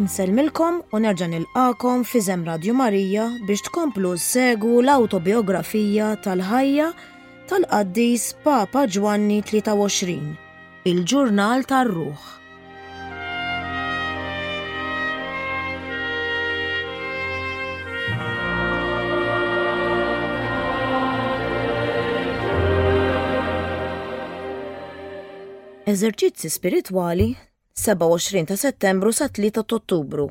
Nsellmilkom u nerġa' nilqakom f'Iżem Radju Marija biex tkomplu ssegwu l-awtobiografija tal-ħajja tal-qaddis Papa Ġwanni 23, il-ġurnal tar-ruħ. Eżerċizzi spiritwali 27 ta' Settembru sa 3 ta' Ottubru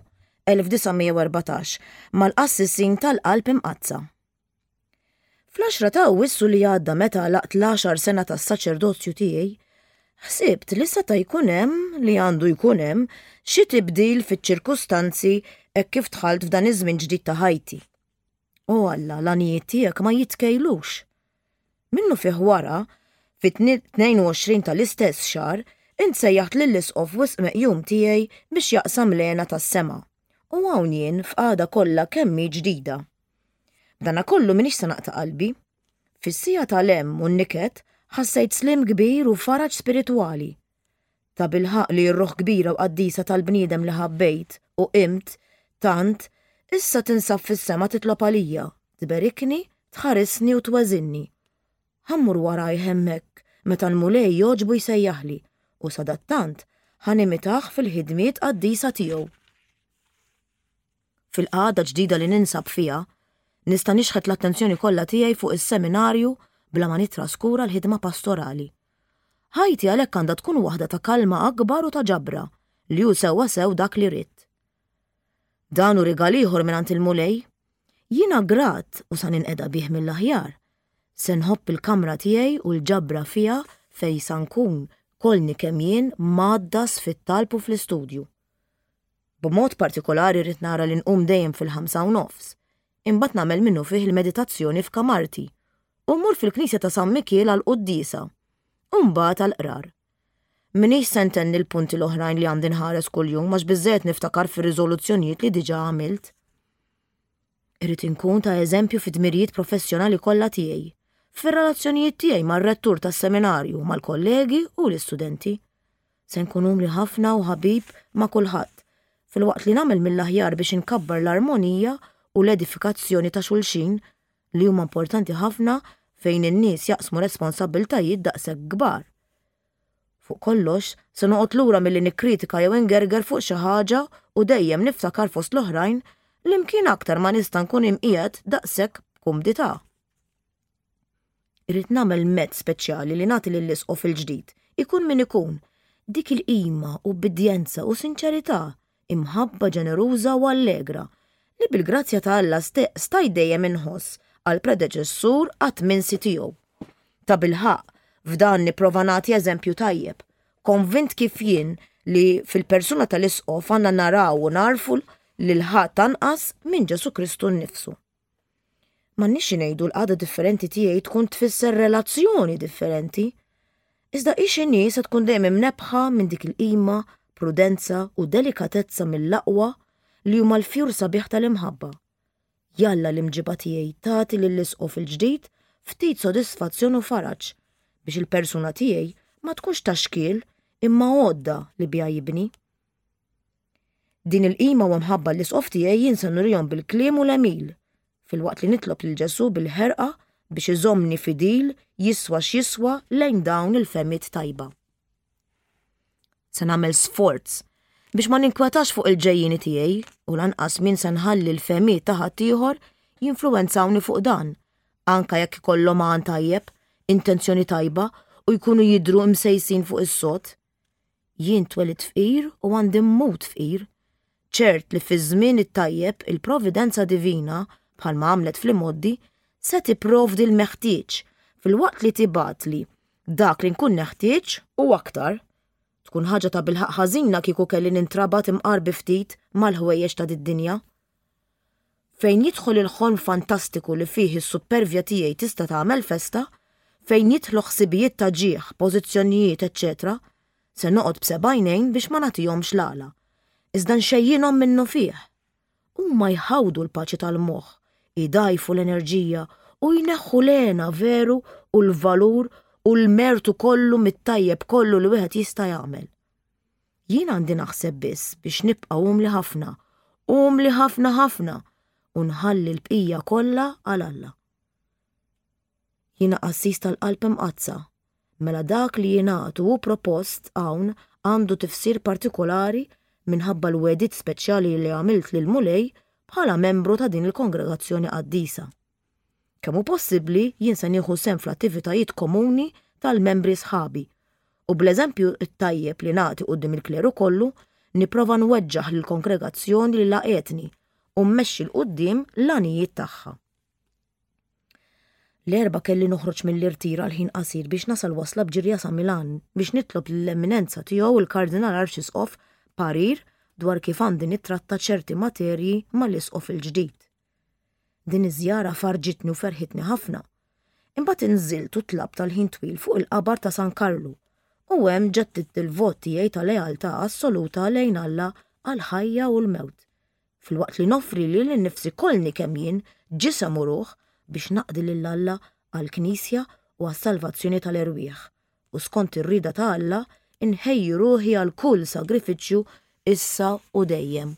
1914 mal-qassisin tal-Qalb Imqaddsa. Fl-10 ta' Awwissu li għadda meta għalaqt l-għaxar sena tas-saċerdozju tiegħi, ħsibt li seta' jkun hemm li għandu jkun hemm xi tibdil fiċ-ċirkustanzi hekk kif dħalt f'dan iż-żmien ġdid ta' ħajti. O Alla, l-għanijiet tiegħek ma jitkejlux. Minnufih wara, fit-22 tal-istess xahar, int sejjaħt lill-Isqof wisq meqjum tiegħi biex jaqsam l-hena tas-sema. U hawn jien f'qagħda kollha kemm hi ġdida. B'danakollu m'iniex se naqta' qalbi. Fis-siegħa tal-hemm u n-niket ħassejt sliem kbir u faraġ spiritwali. Tabilħaqq li r-ruħ kbira u qaddisa tal-bniedem li ħabbejt u qimt tant issa tinsab fis-sema titlob għalija, tberikni, tħarisni u tweżinni. Ħa mmur warajh hemmhekk meta l-Mulej jogħġbu jsejjaħli u sadattant ħa nimitah fil-ħidmiet qaddisa tiegħu. Fil-qagħda ġdida li ninsab fiha, nista' nixħet l-attenzjoni kollha tiegħi fuq is-seminarju bla ma nittraskura l-ħidma pastorali. Ħajti għalhekk għandha tkun waħda ta' kalma akbar u ta' ġabra, li hu sewwasew dak li ridt. Dan hu rigal ieħor mingħand il-Mulej. Jiena grat u sa ninqeda bih mill-aħjar. Se nħobb il-kamra tiegħi u l-ġabra fiha fejn sa nkun kollni kemm jien mgħaddas fit-talb u fl-istudju. B'mod partikolari rrid nara li nqum dejjem fil-ħamsa u nofs, imbagħad nagħmel minnufih il-meditazzjoni f'kamarti u mmur fil-knisja ta' San Mikiel għall-quddiesa u mbagħad għall-qrar. M'iniex se ntenni l-punti l-oħrajn li għandi nħares kuljum għax biżżejjed niftakar fir-riżoluzzjonijiet li diġà għamilt. Irrid inkun ta' eżempju fid-dmirijiet professjonali kollha tiegħi, fir-relazzjonijiet tiegħi mar-rettur tas-seminarju, mal-kollegi u l-istudenti. Se nkun umli ħafna u ħabib ma' kulħadd, filwaqt li nagħmel mill-aħjar biex inkabbar l-armonija u l-edifikazzjoni ta' xulxin li huma importanti ħafna fejn in-nies jaqsmu responsabbiltajiet daqshekk kbar. Fuq kollox, se noqgħod lura milli nikkritika jew ingerger fuq xi ħaġa u dejjem niftakar fost l-oħrajn li mkien aktar ma nista' nkun imqiegħed daqshekk b'kumdità. Irrid nagħmel mezz speċjali li nagħti lill-isqof il-ġdid, ikun min ikun, dik il-qima, ubbidjenza u sinċerità, imħabba ġeneruża u allegra, li bil-grazzja ta' Alla stajt dejjem inħoss għall-predeċessur qatt minsi tiegħu. Tabilħaqq, f'dan nipprova nagħti eżempju tajjeb, konvint kif jien li fil-persuna tal-Isqof għandna naraw u nagħrfu lil ħadd anqas minn Ġesù Kristu nnifsu. M'għandniex xi ngħidu l-qagħda differenti tiegħi tkun tfisser relazzjoni differenti. Iżda hi x'inhi se tkun dejjem imnebbħa minn dik il-qima, prudenza u delikatezza mill-aqwa li huma l-fjur sabiħ tal-imħabba. Jalla l-imġiba tiegħi tagħti lill-Isqof il-ġdid ftit sodisfazzjon u faraġ biex il-persuna tiegħi ma tkunx ta' xkiel imma għodda li biha jibni. Din il-qima u mħabba l-isqof tiegħi jien se nurihom bil-kliem u l-għemil, filwaqt li nitlob lil Ġesù bil-ħerqa biex iżommni fidil jiswa x'jiswa lejn dawn il-fehmiet tajba. Se nagħmel sforz biex ma ninkwetax fuq il-ġejjieni tiegħi u lanqas min se nħalli l-fehmiet ta' ħaddieħor jinfluwenzawni fuq dan, anka jekk ikollhom għan tajjeb, intenzjoni tajba u jkunu jidhru imsejsin fuq is-sod. Jien twelidt fqir u għandi mmut fqir. Ċert li fiż-żmien it-tajjeb il-providenza divina, bħalma għamlet fl-imgħoddi, se tipprovdi l-meħtieġ filwaqt li tibgħatli dak li nkun neħtieġ u aktar. Tkun ħaġa tabilħaqq ħażina kieku kelli nintrabat imqar bi ftit mal-ħwejjeġ ta' did-dinja. Fejn jidħol il-ħolm fantastiku li fih is-suppervja tiegħi tista' tagħmel festa, fejn jidħlu ħsibijiet ta' ġieħ, pożizzjonijiet, eċċetera, se noqgħod b'seba' għajnejn biex ma nagħtihomx l-għala, iżda nxejjinhom minnufih. Huma jħawdu l-paċi tal-moħħ, idgħajfu l-enerġija u jneħħu l-hena veru u l-valur u l-mertu kollu mit-tajjeb kollu li wieħed jista' jagħmel. Jien għandi naħseb biss biex nibqa' umli ħafna, umli ħafna ħafna, u nħalli l-bqija kollha għal Alla. Jiena qassis tal-Qalb Imqaddsa, mela dak li jingħad u hu propost hawn għandu tifsir partikolari minħabba l-wegħdiet speċjali li għamilt lill-Mulej bħala membru ta' din il-kongregazzjoni qaddisa. Kemm hu possibbli jien se nieħu sehem fl-attivitajiet komuni tal-membri sħabi u bl-eżempju t-tajjeb li nagħti quddiem il-kleru kollu nipprova nweġġaħ lill-kongregazzjoni li laqgħetni u mmexxi 'l quddiem l-għanijiet tagħha. L-Erbgħa kelli noħroġ mill-irtir għal ħin qasir biex nasal wasla b'ġirja sa Milan biex nitlob lill-Eminenza Tiegħu l-Kardinal Arċisqof parir dwar kif għandi nittratta ċerti materji mal-Isqof il-ġdid. Din iż-żjara farrġitni u ferħitni ħafna. Imbagħad inżilt u tlabt għal ħin twil fuq il-qabar ta' San Karlu u hemm ġeddidt il-vot tiegħi ta' lealtà assoluta lejn Alla għall-ħajja u l-mewt, filwaqt li noffri lili nnifsi kollni kemm jien, ġisem u ruħ, biex naqdi lil Alla għall-Knisja u għas-salvazzjoni tal-erwieħ, u skont ir-rieda ta' Alla nħejji ruħi għal kull sagrifiċċju issa u dejjem.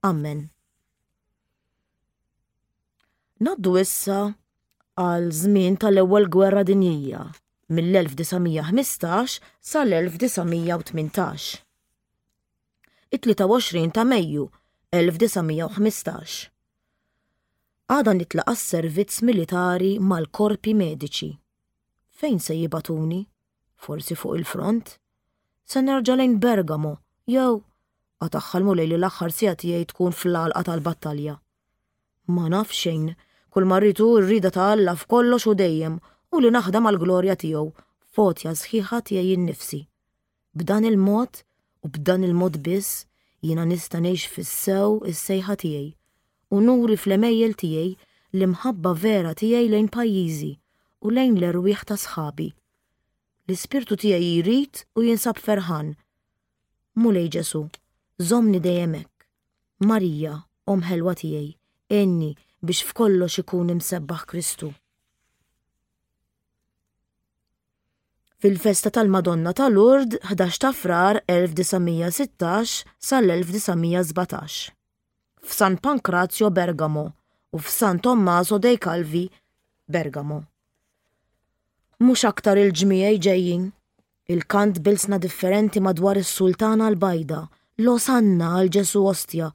Ammen. Ngħaddu issa għal żmien tal-Ewwel Gwerra Dinjija mill-1915 sal-1918. It-23 ta' Mejju 1915. Għada nitlaq għas-servizz militari mal-korpi mediċi. Fejn se jibagħtuni? Forsi fuq il-front? Se nerġa' lejn Bergamo jew qatagħha l-Mulej li l-aħħar siegħa tiegħi tkun fl-għalqa tal-battalja. Ma naf xejn, kull ma rrid hu r-rieda ta' Alla f'kollox u dejjem u li naħdem għall-glorja tiegħu f'għotja sħiħa tiegħi nnifsi. B'dan il-mod u b'dan il-mod biss jiena nista' ngħix fis-sew is-sejħa tiegħi u nuri fl-għemejjel tiegħi l-imħabba vera tiegħi lejn pajjiżi u lejn l-erwieħ ta' sħabi. L-ispirtu tiegħi jrid u jinsab ferħan. Mulej Ġesù, żommni dejjem hekk. Marija, Omm ħelwa tiegħi, għinni biex f'kollox ikun imsebbaħ Kristu. Fil-festa tal-Madonna ta' Lourdes 11 ta' Frar 1916 sal-1917. F'San Pancrazio Bergamo u f'San Tommaso dei Calvi Bergamo. Mhux aktar il-ġmiegħi ġejjin. Il-kant b'ilsna differenti madwar is-Sultana l-Bajda, l-Osanna għal Ġesù Ostja.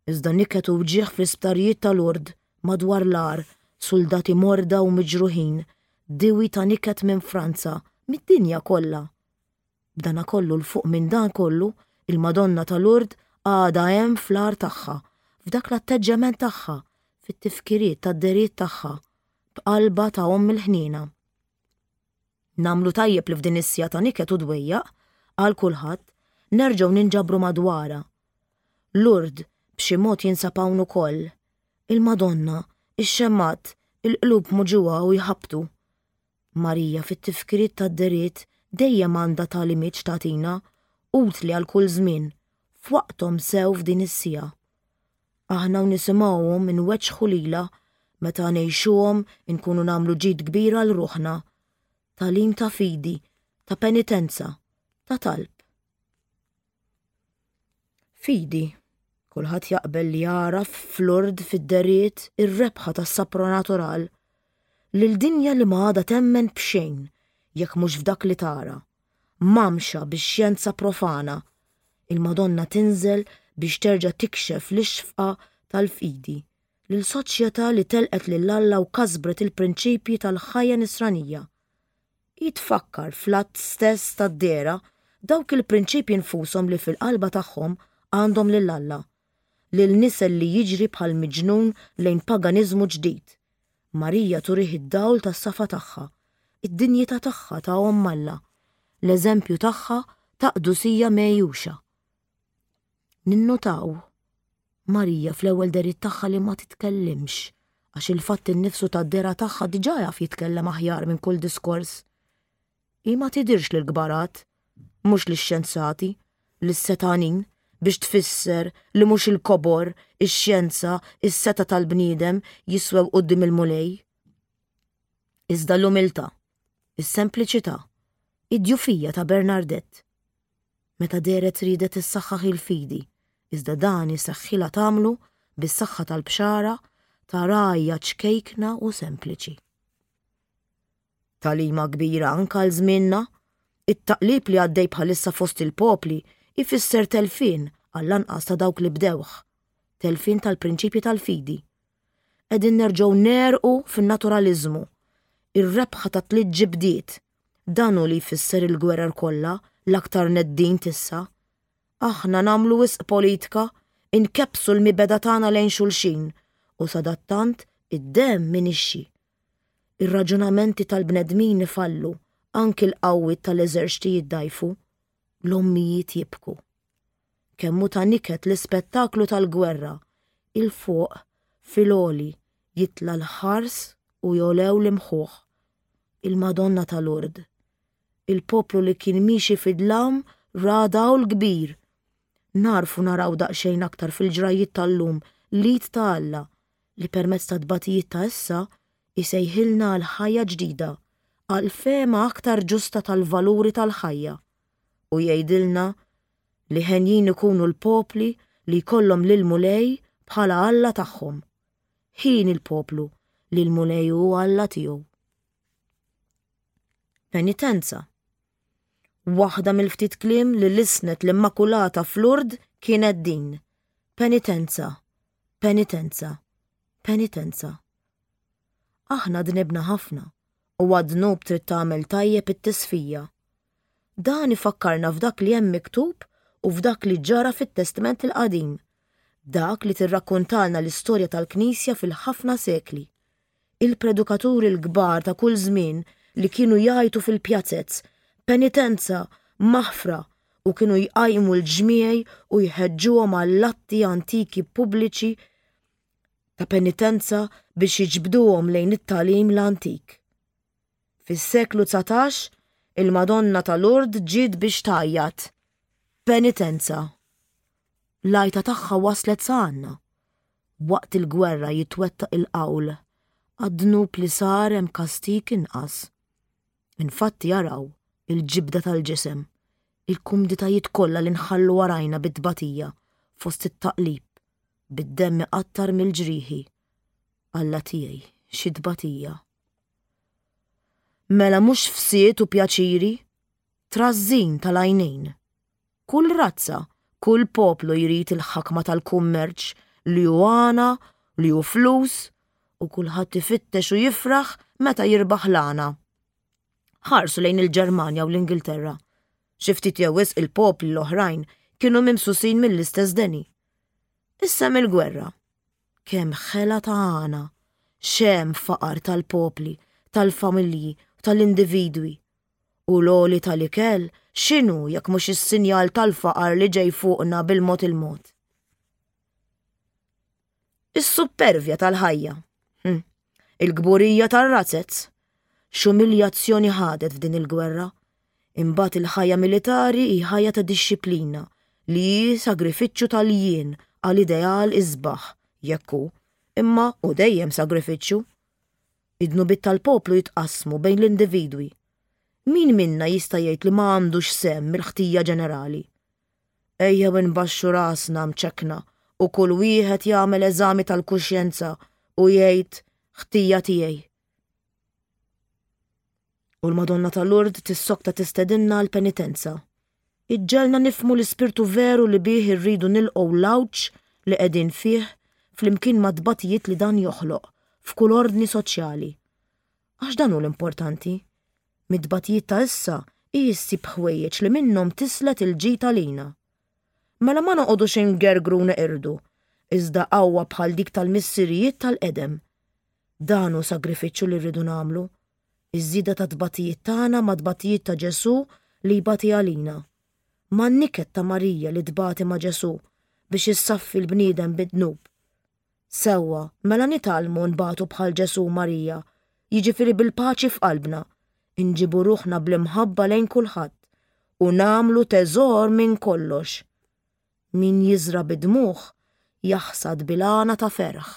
Iżda niket u wġigħ fl-isptarijiet ta' Lourdes, madwar l-għar, suldati morda u miġruħin, diwi ta' niket minn Franza, mid-dinja kollha. B'danakollu 'l fuq minn dan kollu, il-Madonna ta' Lourdes għadha hemm fl-għar tagħha, f'dak l-atteġġjament tagħha, fit-tifkiriet tad-dehriet tagħha, b'qalbha ta' Omm il-Ħniena. Nagħmlu tajjeb li f'din is-siegħa ta' niket u dwejjaq, għal kulħadd, nerġgħu ninġabru madwarha. Lourdes b'xi mod jinsab hawn ukoll. Il-Madonna, ix-xemgħat, il-qlub muġugħa u jħabbtu. Marija fit-tifkiriet tad-dehriet dejjem għandha tagħlimiet x'tagħtina, utli għal kull żmien, f'waqthom sew f'din is-siegħa. Aħna u nisimgħuhom inweġġħu lilha, meta ngħixuhom inkunu nagħmlu ġid kbir għal ruħna. Tagħlim ta' fidi, ta' penitenza, ta' talb. Fidi. Kulħadd jaqbel li jagħraf f'Lourdes fid-deriet ir-rebħa tas-sapronatural. Lil dinja li ma għadha temmen b'xejn jekk mhux f'dak li tara. Mgħammxa bix-xjenza profana, il-Madonna tinżel biex terġa' tikxef l-ixfqa tal-fidi lil soċjetà li telqet lil Alla u kasbret il-prinċipji tal-ħajja nisranija. Hi tfakkar fl-att stess tad-dehra dawk il-prinċipji nfushom li fil-qalba tagħhom għandhom lil Alla, lil nisel li jiġri bħal miġnun lejn paganiżmu ġdid. Marija turih id-dawl tas-safa tagħha, id-dinjità tagħha ta' Omm Alla, l-eżempju tagħha ta' qdusija megħjuxa. Ninnutaw Marija fl-ewwel dehriet tagħha li ma titkellimx, għax il-fatt innifsu tad-dehra tagħha diġà jaf jitkellem aħjar minn kull diskors. Hi ma tidhirx lill-kbarat, mhux lix-xjenzati, lis-setgħanin, biex tfisser li mhux il-kobor, ix-xjenza, is-setgħa tal-bniedem jiswew quddiem il-Mulej. Iżda l-umiltà, is-sempliċità, id-djufija ta' Bernardette. Meta dehret riedet issaħħaħ il-fidi, iżda dan iseħħilha tagħmlu bis-saħħa tal-bxara ta' rgħajja ċkejkna u sempliċi. Tagħlima kbira anke għal żmienna, it-taqlib li għaddej bħalissa fost il-popli jfisser telfien għall-anqas ta' dawk li bdewh, telfien tal-prinċipji tal-fidi. Qegħdin nerġgħu negħrqu fin-naturaliżmu, ir-rebħa ta' tliet ġibdiet, dan hu li jfisser il-gwerer kollha l-aktar neddin t'issa. Aħna nagħmlu wisq politika, inkebbsu l-mibegħda tagħna lejn xulxin u sadattant id-demm inixxi. Ir-raġunamenti tal-bnedmin ifallu, anki l-qawwiet tal-eżerċti jiddgħajfu. L-ommijiet jibku. Kemm hu ta' niket l-ispettaklu tal-gwerra, 'il fuq, fil-għoli, jitla' l-ħars u jogħlew l-imħuħ. Il-Madonna ta' Lourdes. Il-poplu li kien miexi fid-dlam ra dawl kbir. Nagħrfu naraw daqsxejn aktar fil-ġrajjiet tal-lum l-id ta' Alla li permezz tat-tbatijiet ta' issa jsejħilna għal ħajja ġdida, għal fehma aktar ġusta tal-valuri tal-ħajja, u jgħidilna li henjin ikunu l-popli li jkollhom lill-Mulej bħala Alla tagħhom. Hieni l-poplu li l-Mulej hu Alla tiegħu. Penitenza. Waħda mill-ftit kliem li lissnet l-Immakulata f'Lourdes kienet din, Penitenza, penitenza, penitenza. Aħna dnibna ħafna u għad-dnub trid tagħmel tajjeb it-tisfija. Dan ifakkarna f'dak li hemm miktub u f'dak li ġara fit-Testment il-Qadim, dak li tirrakkontalna l-istorja tal-Knisja fil-ħafna sekli. Il-predukaturi l-kbar ta' kull żmien li kienu jgħajtu fil-pjazez, Penitenza! Maħfra! u kienu jqajmu l-ġmiegħi u jħeġġuhom għall-atti antiki pubbliċi ta' penitenza biex jiġbduhom lejn it-tagħlim l-antik. Fis-seklu 19, il-Madonna ta' Lourdes ġiet biex tgħajjat, Penitenza! L-għajta tagħha waslet sa għandna. Waqt il-gwerra jitwettaq il-qawl, Għad-dnub li sar hemm kastig inqas. Infatti araw il-ġibda tal-ġisem, il-kumditajiet kollha li nħallu warajna bit-tbatija fost it-taqlib, bid-demm iqattar mill-ġrieħi. Alla tiegħi, xi tbatija! Mela mhux fsied u pjaċiri, trażżin tal-għajnejn. Kull razza, kull poplu jrid il-ħakma tal-kummerċ li hu għana, li hu flus, u kulħadd ifittex u jifraħ meta jirbaħ l-għana. Ħarsu lejn il-Ġermanja u l-Ingilterra. Xi ftit jew wisq il-popli l-oħrajn kienu mimsusin mill-istess deni. Issa hemm il-gwerra. Kemm ħela ta' għana, x'hemm faqar tal-popli, tal-familji, tal-individwi. U l-għoli tal-ikel x'inhu jekk mhux is-sinjal tal-faqar li ġej fuqna bil-mod il-mod? Is-suppervja tal-ħajja. Hm. Il-kburija tar-razzez. X'umiljazzjoni ħadet f'din il-gwerra. Imbagħad il-ħajja militari hi ħajja ta' dixxiplina li hi sagrifiċċju tal-jien għal ideal isbaħ, jekk hu, imma hu dejjem sagrifiċċju. Id-dnubiet tal-poplu jitqassmu bejn l-individwi. Min minna jista' jgħid li ma għandux sehem mill-ħtija ġenerali? Ejjew inbaxxu rasna mċekkna u kull wieħed jagħmel eżami tal-kuxjenza u jgħid ħtija tiegħi. U l-Madonna ta' Lourdes tissokta tistedinna għall-penitenza. Iġġegħelna nifhmu l-ispirtu veru li bih irridu nilqgħu l-għawġ li qegħdin fih flimkien mat-tbatijiet li dan joħloq f'kull ordni soċjali. Għax dan hu l-importanti. Mit-tbatijiet ta' issa hi ssib ħwejjeġ li minnhom tislet il-ġid għalina. Mela ma noqogħdux ingergru u neqirdu, iżda qawwa bħal dik tal-missirijiet tal-qedem. Dan hu sagrifiċċju li rridu nagħmlu. Iż-żieda tat-tbatijiet tagħna mat-tbatijiet ta' Ġesù li jbati għalina. Man-niket ta' Marija li tbati ma' Ġesù biex issaffi l-bniedem bid-dnub. Sewwa, mela nitgħallmu nbatu bħal Ġesù u Marija, jiġifieri bil-paċi f'qalbna, inġibu ruħna bl-imħabba lejn kulħadd u nagħmlu teżor minn kollox. Min jiżra' bid-dmugħ jaħsad bil-għana ta' ferħ.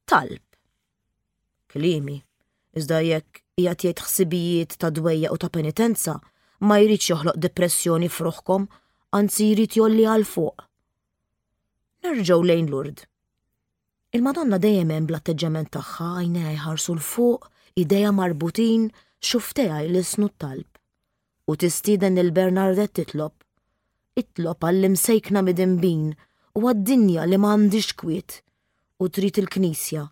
Talb. Kliemi. Iżda jekk qiegħed jgħid ħsibijiet ta' dwejjaq u ta' penitenza, ma jridx joħloq depressjoni f'ruħkom, anzi jrid jolli għal fuq. Nerġgħu lejn Lourdes. Il-Madonna dejjem hemm bl-atteġġjament tagħha għajnejha jħarsu 'l fuq, idejha marbutin, xufftejha jlissnu t-talb. U tistieden lil Bernardette titlob. Itlob għall-imsejkna midinbin u għad-dinja li ma għandhiex kwiet. U trid il-Knisja,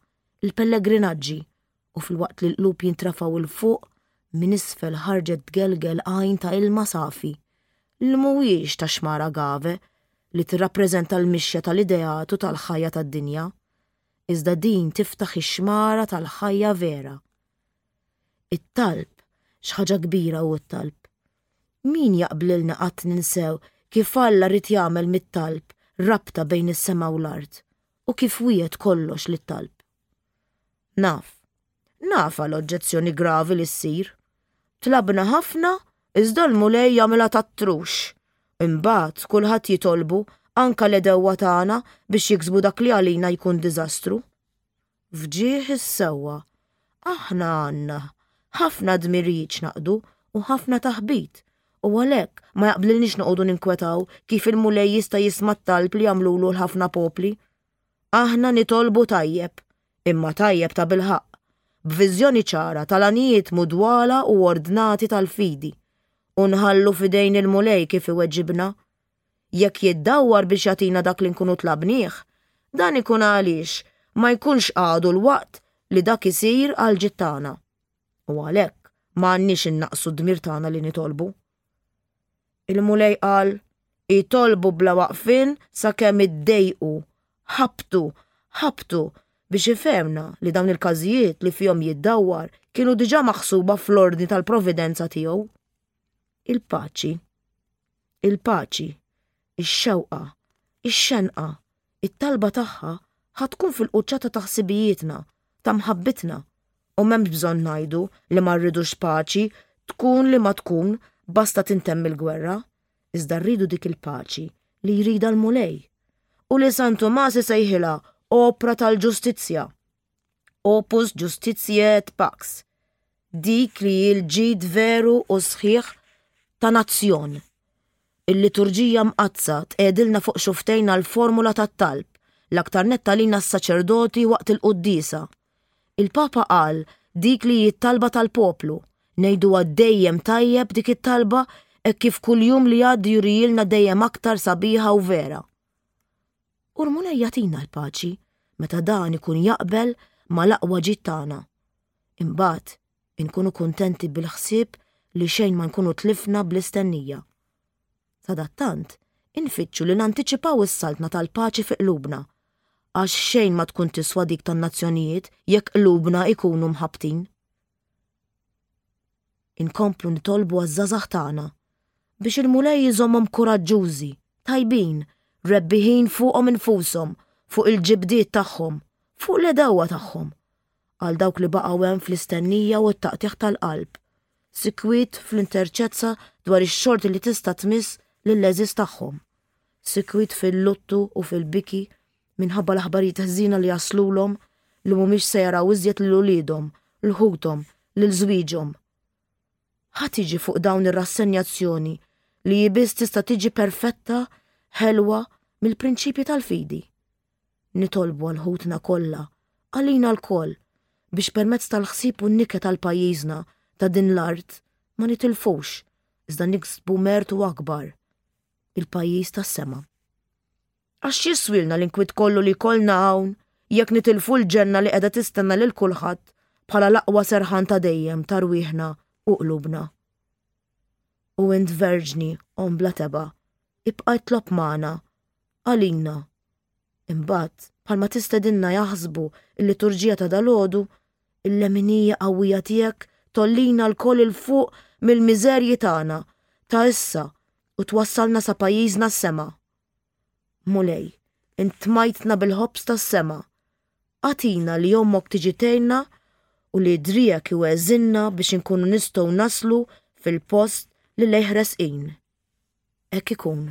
il-pellegrinaġġi, u filwaqt li l-qlub jintrefgħu 'l fuq, minn isfel ħarġet tgelgel għajn ta' ilma safi, li mhuwiex ta' xmara Gave li tirrappreżenta l-mixja tal-ideat u tal-ħajja tad-dinja, iżda din tiftaħ ix-xmara tal-ħajja vera. It-talb, x'ħaġa kbira hu t-talb. Min jaqblilna qatt ninsew kif Alla ried jagħmel mit-talb rabta bejn is-sema u l-art, u kif wiegħed kollox lit-talb. Naf. Nafha l-oġġezzjoni gravi li ssir. Tlabna ħafna, iżda l-Mulej jagħmilha tat-trux. Imbagħad kulħadd jitolbu, anke l-għedewwa tagħna, biex jiksbu dak li għalina jkun diżastru. F'ġieħ is-sewwa, aħna għandna ħafna dmirijiet x'naqdu u ħafna taħbit, u għalhekk ma jaqblilniex noqogħdu ninkwetaw kif il-Mulej jista' jisma' t-talb li jagħmlulu l-ħafna popli. Aħna nitolbu tajjeb, imma tajjeb tabilħaqq, b'viżjoni ċara tal-għanijiet mudwala u ordnati tal-fidi, u nħallu f'idejn il-Mulej kif iweġibna. Jekk jiddawwar biex jagħtina dak li nkunu tlabnieh, dan ikun għaliex ma jkunx għadu l-waqt li dak isir għall-ġid tagħna. U għalhekk ma għandniex innaqqsu d-dmir tagħna li nitolbu. Il-Mulej qal, Itolbu bla waqfien sakemm iddejqu, ħabbtu, ħabbtu, biex ifehmna li dawn il-każijiet li fihom jiddawwar kienu diġà maħsuba fl-ordni tal-providenza tiegħu. Il-paċi. Il-paċi. Ix-xewqa. Ix-xenqa. It-talba tagħha ħa tkun fil-quċċata ta' ħsibijietna, ta' mħabbitna. U m'hemmx bżonn ngħidu li ma rridux paċi, tkun li ma tkun, basta tintemm il-gwerra. Iżda rridu dik il-paċi li jridha l-Mulej. U li San Tumas isejħilha opra tal-ġustizzja. Opus Justitiae et Pax. Dik li hi l-ġid veru u sħiħ ta' nazzjon. Il-Liturġija Mqaddsa tqiegħdilna fuq xufftejna l-formula tat-talb, l-aktar nett għalina s-saċerdoti waqt il-quddiesa. Il-Papa qal dik li hi t-talba tal-poplu, ngħiduha dejjem tajjeb dik it-talba hekk kif kull jum li jgħaddi jurihielna dejjem aktar sabiħa u vera. U l-Mulej jagħtina l-paċi meta dan ikun jaqbel mal-aqwa ġid tagħna. Imbagħad inkunu kuntenti bil-ħsieb li xejn ma nkunu tlifna bl-istennija. Sadattant, infittxu li nantiċipaw is-saltna tal-paċi fi qlubna, għax xejn ma tkun tiswa dik tan-nazzjonijiet jekk qlubna jkunu mħabbtin. Inkomplu nitolbu għaż-żgħażagħ tagħna biex il-Mulej iżommhom kuraġġużi, tajbin, rebbiħin fuqhom infushom, fuq il-ġibdiet tagħhom, fuq l-għedewwa tagħhom, għal dawk li baqgħu hemm fl-istennija u t-taqtigħ tal-qalb, sikwit fl-interċezza dwar ix-xorti li tista' tmiss lill-għeżież tagħhom, sikwit fil-luttu u fil-biki minħabba l-aħbarijiet ħżiena li jaslulhom li mhumiex se jaraw iżjed lil uliedhom, 'l ħuthom, lil żwieġhom. Ħa tiġi fuq dawn ir-rassenjazzjoni li hi biss tista' tiġi perfetta, ħelwa mill-prinċipji tal-fidi. Nitolbu għal ħutna kollha, għalina lkoll, biex permezz tal-ħsieb u n-niket għal pajjiżna ta' din l-art ma nitilfux, iżda niksbu mertu akbar, il-pajjiż tas-sema. Għax x'jiswielna l-inkwiet kollu li jkollna hawn jekk nitilfu l-ġenna li qiegħda tistenna lil kulħadd bħala l-aqwa serħan ta' dejjem ta' rwieħna u qlubna? U int Verġni, Omm bla tebgħa, ibqa' itlob magħna, għalina. Imbagħad, bħalma tistedinna jaħsbu l-liturġija ta' dalgħodu, il-leminija qawwija tiegħek tgħollina lkoll 'il fuq mill-miżerji tagħna ta' issa u twassalna sa pajjiżna s-sema. Mulej, int tmajtna bil-ħobż tas-sema. Agħtina li ommok tiġi tgħinna u li driegħek iweżinna biex inkunu nistgħu naslu fil-post li lejh resqin. Hekk ikun.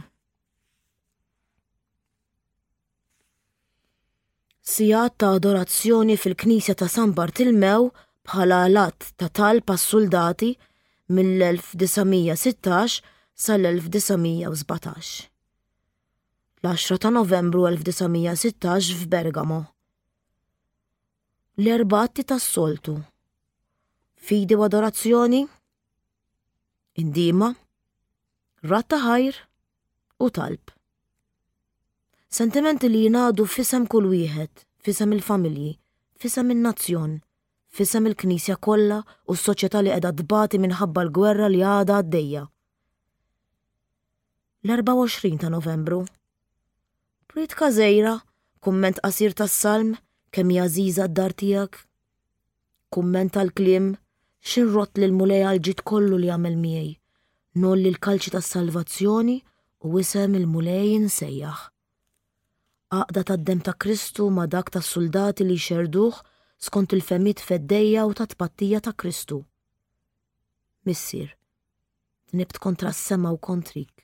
Sigħat ta' adorazzjoni fil-Knisja ta' San Bartilmew bħala l-att ta' talb għas-suldati. mill-1916 sal-1917. L-10 ta' Novembru 1916 f'Bergamo. L-erba' atti tas-soltu. Fidi u adorazzjoni, indiema, radd ta' ħajr u talb. Sentimenti li jingħadu f'isem kull wieħed, f'isem il-familji, f'isem in-nazzjon, f'isem il-Knisja kollha u s-soċjetà li qiegħda tbati minħabba l-gwerra li għadha għaddejja. L-24 ta' Novembru. Priedka żgħira, kumment qasir tas-Salm, Kemm hi għażiża d-dar tiegħek. Kumment tal-kliem, X'inrodd lill-Mulej għall-ġid kollu li għamel miegħi. Ngħolli l-kalċi tas-salvazzjoni u isem il-Mulej insejjaħ. Għaqda tad-demm ta' Kristu ma' dak tas-suldati li jxerrduh skont il-fehmiet feddejja u ta' tpattija ta' Kristu. Missier, dnibt kontra s-sema u kontrik.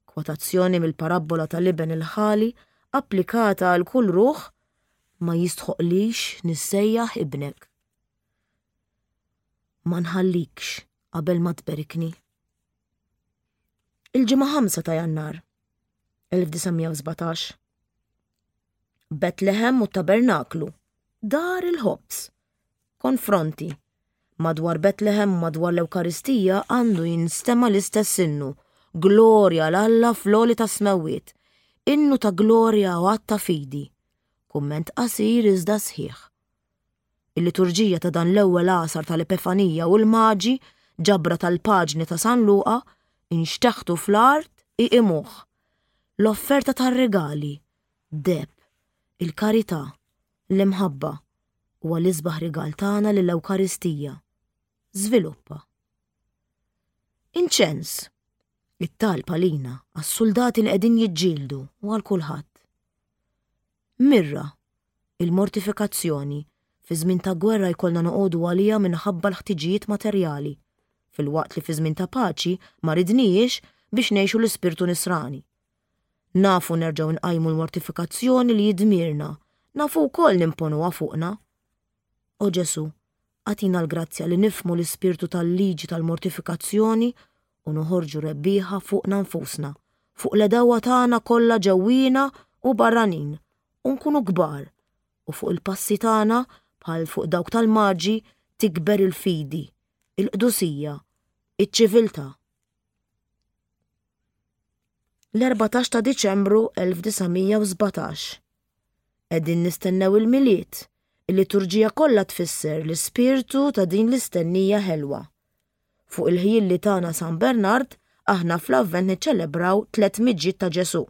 Kwotazzjoni mill-parabbola tal-iben il-ħali applikata għal kull ruħ, Ma jistħoqqlix nissejjaħ ibnek. Ma nħallikx qabel ma tberikni. Il-Ġimgħa 5 ta' Jannar 1917. Betlehem u t-Tabernaklu, dar il-ħobż. Konfronti. Madwar Betlehem u madwar l-Ewkaristija għandu jinstema' l-istess innu, Glorja 'l Alla fl-għoli tas-smewwiet. Innu ta' glorja u att ta' fidi. Kumment qasir iżda sħiħ. Il-liturġija ta' dan l-ewwel għasar tal-Epifanija u l-Maġi, ġabra tal-paġni ta' San Luqa, inxteħtu fl-art iqimuh. L-offerta tar-rigali, deheb, il-karità, l-imħabba, huwa l-isbaħ rigal tagħna lill-Ewkaristija. Żviluppa. Inċens, it-talb għalina, għas-suldati li qegħdin jiġġieldu u għal kulħadd. Mirra, il-mortifikazzjoni, fi żmien ta' gwerra jkollna noqogħdu għaliha minħabba l-ħtiġijiet materjali, filwaqt li fi żmien ta' paċi ma ridnihiex biex ngħixu l-ispirtu nisrani. Nafu nerġgħu nqajmu l-mortifikazzjoni li hi dmirna, nafu wkoll nimponuha fuqna. O Ġesù, agħtina l-grazzja li nifhmu l-ispirtu tal-liġi tal-mortifikazzjoni u noħorġu rebbieħa fuqna nfusna, fuq l-għedewwa tagħna kollha ġewwiena u barranin, u nkunu kbar, u fuq il-passi tagħna bħal fuq dawk tal-Maġi tikber il-fidi, il-qdusija, iċ-ċiviltà. L-14 ta' Diċembru 1917. Qegħdin nistennew il-Milied. Il-liturġija kollha tfisser l-ispirtu ta' din l-istennija ħelwa. Fuq il-ħjiel li tana San Bernard, aħna fl-Avvent niċċelebraw tlett miġjiet ta' Ġesù.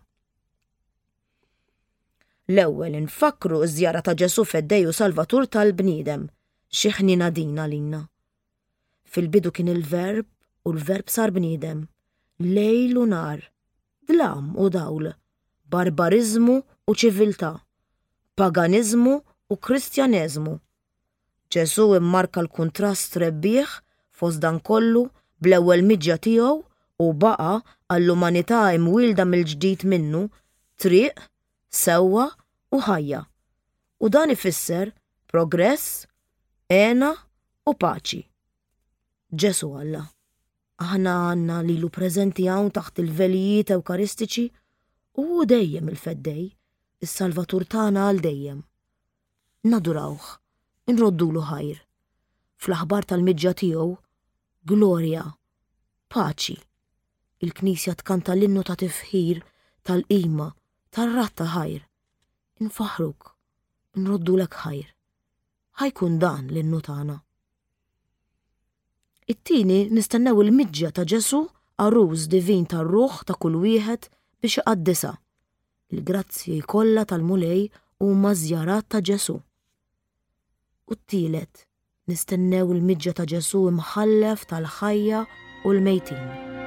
L-ewwel infakkru ż-żjara ta' Ġesù Feddej u Salvatur tal-bniedem. Xi ħniena din għalina. Fil-bidu kien il-Verb u l-Verb sar bniedem. Lejl u nhar, dlam u dawl, barbariżmu u ċiviltà, paganiżmu u Kristjaneżmu. Ġesù immarka l-kuntrast rebbieħ fost dan kollu bl-ewwel miġja tiegħu u baqa' għall-umanità imwielda mill-ġdid minnu triq, sewwa u ħajja. U dan ifisser progress, hena u paċi. Ġesù Alla. Aħna għandna lilu preżenti hawn taħt il-velijiet Ewkaristiċi u hu dejjem il-Feddej, is-Salvatur tagħna għal dejjem. Nadurawh, inroddulu ħajr. Fl-aħbar tal-miġja tiegħu, glorja, paċi. Il-Knisja tkanta l-innu ta' tifħir, tal-qima, tar-radd ta' ħajr. Infaħħruk, nroddulek ħajr. Ħa jkun dan l-innu tagħna. It-tieni nistennew il-miġja ta' Ġesù għarus divin tar-ruħ ta' kull wieħed biex iqaddisha. Il-grazzji kollha tal-Mulej huma żjarat ta' Ġesù. U t-tielet, nistennew il-miġja ta' Ġesù imħallef tal-ħajja u l-mejtin.